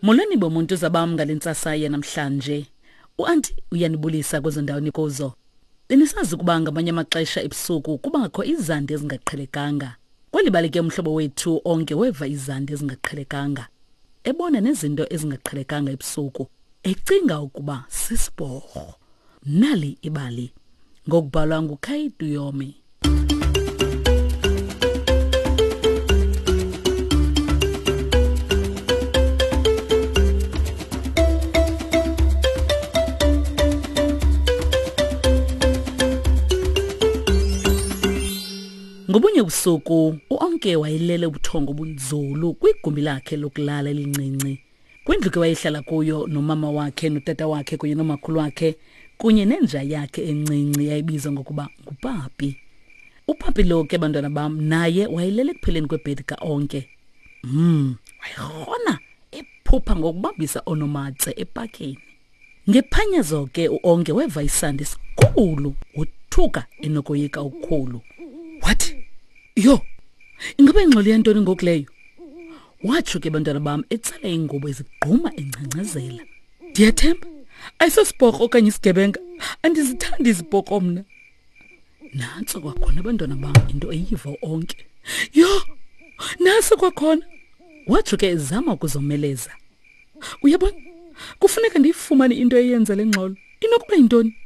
Molweni bomuntu zabam ngale ntsasa yanamhlanje. Uanti uyanibulisa kwezo ndawo nikuzo. Benisazi ukuba ngamanye amaxesha ebusuku kubakho izandi ezingaqhelekanga. Kweli bali ke umhlobo wethu onke weva izandi ezingaqhelekanga. Ebona nezinto ezingaqhelekanga ebusuku, ecinga ukuba sisiporho. Nali ibali ngokubhalwa nguKay Duyomi. Ngobunye ubusuku uOnke wayelele ubuthongo obunzulu kwigumbi lakhe lokulala elincinci. Kwindlu ke wayehlala kuyo nomama wakhe notata wakhe kunye nomakhulu wakhe kunye nenja yakhe encinci yayibizwa ngokuba nguPapi. UPapi lo ke bantwana bam naye wayelele ekupheleni kwebhedi kaOnke. Wayerhona ephupha ngokubambisa onomatse epakeni. Ngephanyazo ke uOnke weva isandi esikhulu wothuka enokoyika okukhulu. Wathi, "Yho, ingaba ingxolo yantoni ngoku leyo?" Watsho ke bantwana bam etsala ingubo ezigquma engcangcazela. Ndiyathemba ayisosiporho okanye isigebenga, andizithandi iziporho mna. Nantso kwakhona abantwana bam into eyiva onke. Yho, nantso kwakhona. Watsho ke ezama ukuzomeleza. Uyabona, kufuneka ndiyifumane into eyenza le ngxolo. Inokuba yintoni?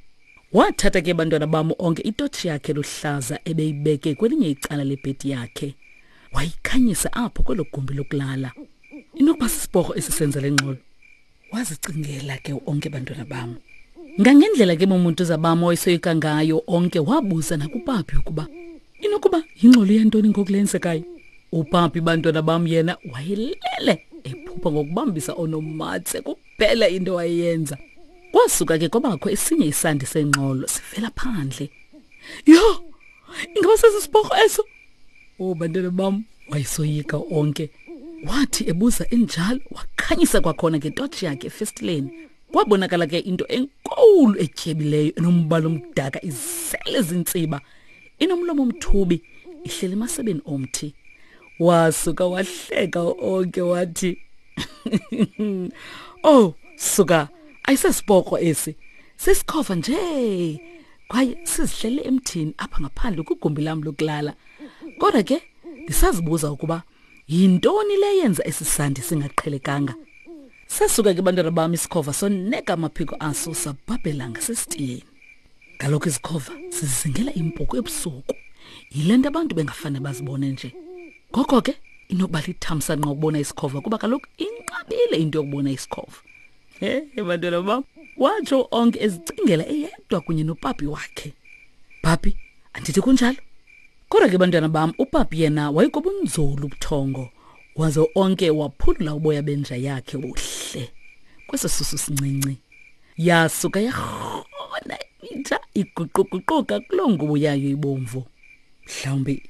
Wathatha ke bantwana bam onke itotshi yakhe luhlaza ebeyibeke kwelinye icala lebhedi yakhe. Wayikhanyisa apho kwelo gumbi lokulala. Inokuba sisiporho esisenza le ngxolo. Wazicingela ke onke bantwana bam. Ngangendlela ke bomuntu zabam owayesoyika ngayo onke wabuza nakupapi ukuba inokuba yingxolo yantoni ngoku lenzekayo. Upapi bantwana bam yena wayelele ephupha ngokubambisa onomatse kuphela into wayeyenza. Kwasuka ke kwabakho esinye isandi sengxolo sivela phandle. Yho! Ingaba sesisiporho eso? Oh bantwana bam wayesoyika onke. Wathi ebuza enjalo wakhanyisa kwakhona ngetotshi yakhe efestileni. Kwabonakala ke into enkulu etyebileyo enombala omdaka izele zintsiba inomlomo omthubi ihleli emasebeni omthi. Wasuka wahleka onke wathi Oh suka ayisesiporho esi sisikhova nje kwaye sizihlele emthini apha ngaphandle kwigumbi lam lokulala kodwa ke ndisazibuza ukuba yintoni le yenza esi sandi singaqhelekanga sasuka ke bantwana bam isikhova soneka amaphiko aso sabhabhela ngasesitiyeni kaloku izikhova zizingela impuku ebusuku yile nto abantu bengafane bazibone nje ngoko ke inokuba lithamsanqa ukubona isikhova kuba kaloku inqabile into yokubona isikhova He bantwana bam, watsho onke ezicingela eyedwa kunye nopapi wakhe. Papi, andithi kunjalo? Kodwa ke bantwana bam, upapi yena wayekobunzulu ubuthongo, waze onke waphulula uboya benja yakhe buhle kweso susu sincinci. Yasuka yarhona inja iguquguquka kuloo ngubo yayo ibomvu. Mhlawumbi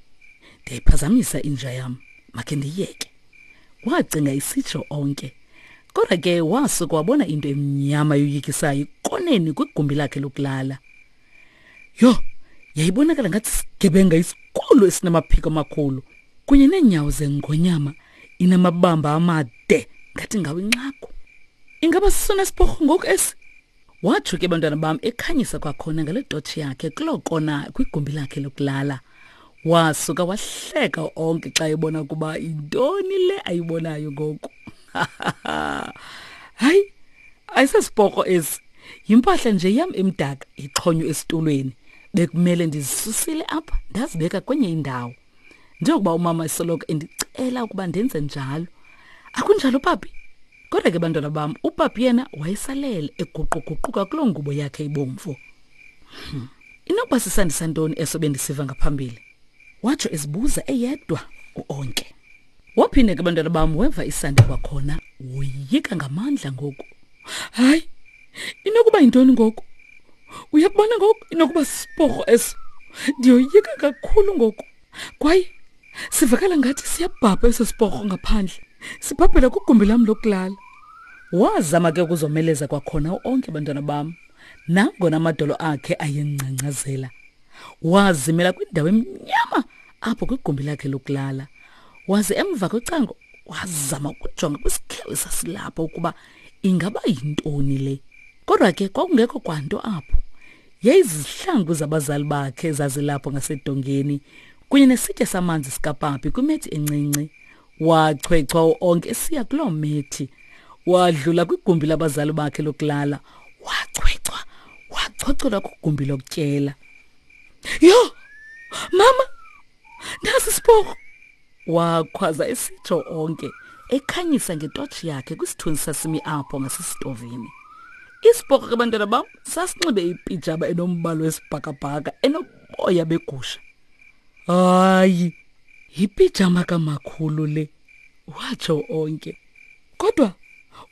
ndiyayiphazamisa inja yam, makhe ndiyiyeke. Wacinga isitsho onke. Kodwa ke wasuka wabona into emnyama yoyikisayo ikoneni kwigumbi lakhe lokulala. Yho, yayibonakala ngathi sigebenga isikhulu esinamaphiko amakhulu kunye neenyawo zengonyama inamabamba amade ngathi ngawo inxagu. Ingaba sisona siporho ngoku esi? Watsho ke bantwana bam ekhanyisa kwakhona ngale totshi yakhe kuloo kona kwigumbi lakhe lokulala. Wasuka wahleka onke xa ebona ukuba yintoni le ayibonayo ngoku. Hayi, ayisesiporho esi. Yimpahla nje yam emdaka ixhonywe esitulweni. Bekumele ndizisusile apha ndazibeka kwenye indawo. Njengokuba umama esoloko endicela ukuba ndenze njalo. Akunjalo papi? Kodwa ke bantwana bam, upapi yena wayesalele eguquguquka kuloo ngubo yakhe ibomvu. Inokuba sisandisa ntoni eso bendisiva ngaphambili? Watsho ezibuza eyedwa uOnke. Waphinde ke bantwana bam weva isandi kwakhona, woyika ngamandla ngoku. Hayi, inokuba yintoni ngoku? Uyakubona ngoku inokuba sisiporho eso. Ndiyoyika kakhulu ngoku. Kwaye sivakala ngathi siyabhabha eso siporho ngaphandle. Sibhabhela kwigumbi lam lokulala. Wazama ke ukuzomeleza kwakhona uOnke bantwana bam. Nangona amadolo akhe ayengcangcazela. Wazimela kwindawo emnyama apho kwigumbi lakhe lokulala. Waze emva kocango Wazama ukujonga kwisikhewu esasilapho ukuba ingaba yintoni le. Kodwa ke kwakungekho kwanto apho. Yayizizihlangu zabazali bakhe ezazilapho ngasedongeni kunye nesitya samanzi sikapapi kwimethi encinci. Wachwechwa uOnke esiya kuloo methi. Wadlula kwigumbi labazali bakhe lokulala. Wachwechwa, wachochola kwigumbi lokutyela. Yho! Mama! Nasi isiporho! Wakhwaza esitsho onke ekhanyisa ngetotshi yakhe kwisithunzi sasimi apho ngasesitovini. Isiporho ke bantwana bam sasinxibe ipijama enombala wesibhakabhaka enoboya begusha. Hayi, yipijama kamakhulu le, watsho onke. Kodwa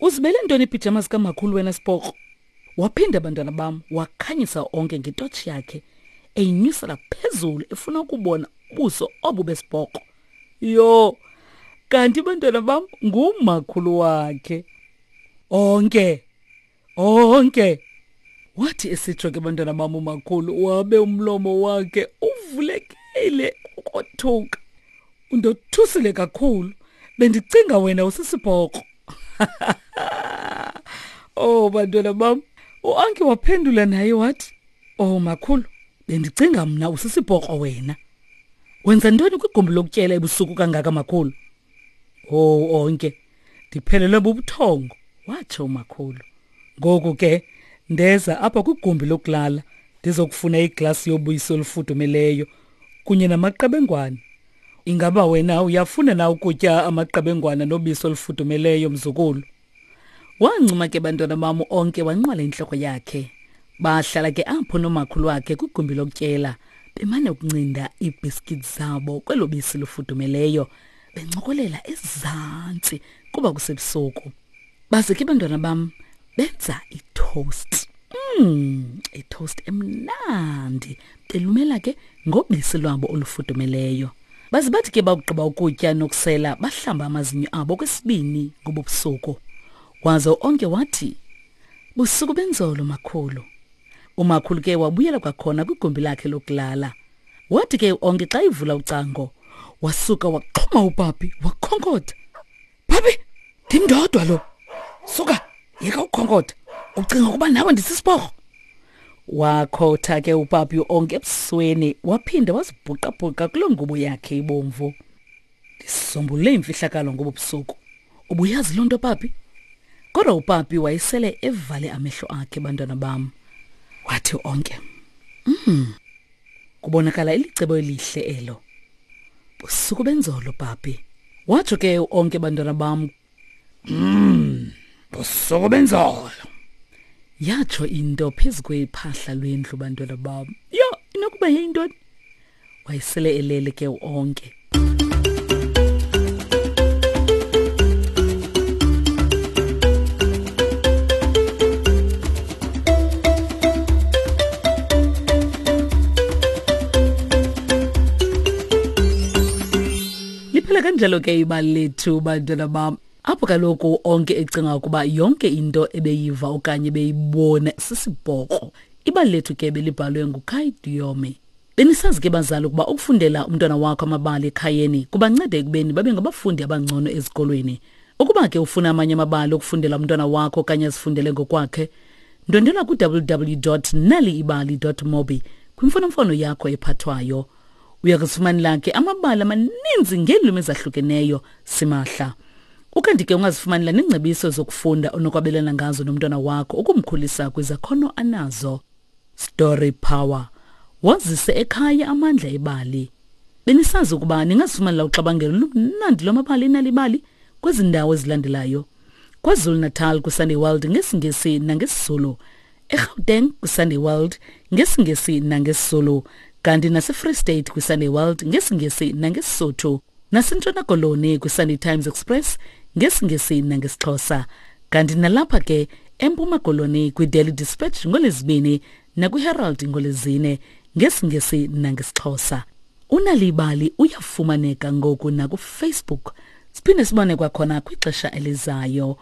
uzibele ntoni iipijama zikamakhulu wena siporho? Waphinda bantwana bam wakhanyisa onke ngetotshi yakhe eyinyusela phezulu efuna ukubona ubuso obu besibhoqo. Yho, kanti bantwana bam ngumakhulu wakhe. Onke, onke. Wathi esitsho ke bantwana bam umakhulu wabe umlomo wakhe uvulekile ukothuka. Undothusile kakhulu. Bendicinga wena usisibhoqo. Oh bantwana bam, uAnki waphendula naye wathi, "Oh makhulu, bendicinga mna usisibhoqo wena. Wenza ntoni kwigumbi lokutyela ebusuku kangaka makhulu?" Oh onke, ndiphelelwe bubuthongo, watsho umakhulu. Ngoku ke ndeza apha kwigumbi lokulala ndizokufuna iglasi yobisi olufudumeleyo kunye namaqebengwana. Ingaba wena uyafuna na ukutya amaqebengwana nobisi olufudumeleyo mzukulu? Wancuma ke bantwana bam onke wanqwala intloko yakhe. Bahlala ke apho nomakhulu wakhe kwigumbi lokutyela bemane ukuncinda iibhiskithi zabo kwelo bisi lufudumeleyo bencokolela ezantsi kuba kusebusuku. Baze ke bantwana bam benza itoast. Itoast emnandi belumela ke ngobisi lwabo olufudumeleyo. Baze bathi ke bakugqiba ukutya nokusela bahlamba amazinyo abo kwesibini ngobo busuku. Waze onke wathi, Busuku benzolo makhulu. Umakhulu ke wabuyela kwakhona kwigumbi lakhe lokulala. Wathi ke onke xa ivula ucango, wasuka waxhuma upapi wakhonkotha. Papi, ndim ndodwa lo. Suka, yeka ukukhonkotha. Ucinga ukuba nawe ndisisiporho? Wakhotha ke upapi onke ebusweni waphinda wazibhuqabhuqa kuloo ngubo yakhe ibomvu. Ndisombulule imfihlakalo ngobo busuku. Ubuyazi loo nto papi? Kodwa upapi wayesele evale amehlo akhe bantwana bam. Wathi onke, kubonakala ilicebo elihle elo. Busuku benzolo papi. Watsho ke onke bantwana bam. Busuku benzolo. Yatsho into phezu kwephahla lwendlu bantwana bam. Yho, inokuba yeyintoni? Wayesele elele ke onke. Liphela kanjalo ke ibali lethu bantwana bam. Apho kaloku onke ecinga ukuba yonke into ebeyiva okanye ebeyibona sisibhoqo. Ibali lethu ke belibhalwe nguKai Diome. Benisazi ke bazali ukuba ukufundela umntwana wakho amabali ekhayeni kubanceda ekubeni babe ngabafundi abangcono ezikolweni. Ukuba ke ufuna amanye amabali okufundela umntwana wakho okanye azifundele ngokwakhe, ndwendwela ku-www.naliibali.mobi kwimfonomfono yakho ephathwayo. Uya kuzifumanela ke amabali amaninzi ngeelwimi ezahlukeneyo simahla. Ukanti ke ungazifumanela neengcebiso zokufunda onokwabelana ngazo nomntwana wakho ukumkhulisa kwizakhono anazo. Story Power. Wazise ekhaya amandla ebali. Benisazi ukuba ningazifumanela uxabangelo lumnandi lwamabali enalibali kwezi ndawo ezilandelayo. KwaZulu-Natal kwiSunday World ngesiNgesi nangesiZulu. eGauteng kwiSunday World ngesiNgesi nangesiZulu. Kanti naseFree State kwiSunday World ngesiNgesi nangeSisotho. NaseNtshona Koloni kwiSunday Times Express ngesiNgesi nangesiXhosa. Kanti nalapha ke eMpuma Koloni kwiDaily Dispatch ngoLwezibini nakwiHerald ngoLwezine ngesiNgesi nangesiXhosa. Unalibali uyafumaneka ngoku nakuFacebook. Siphinde sibone kwakhona kwixesha elizayo.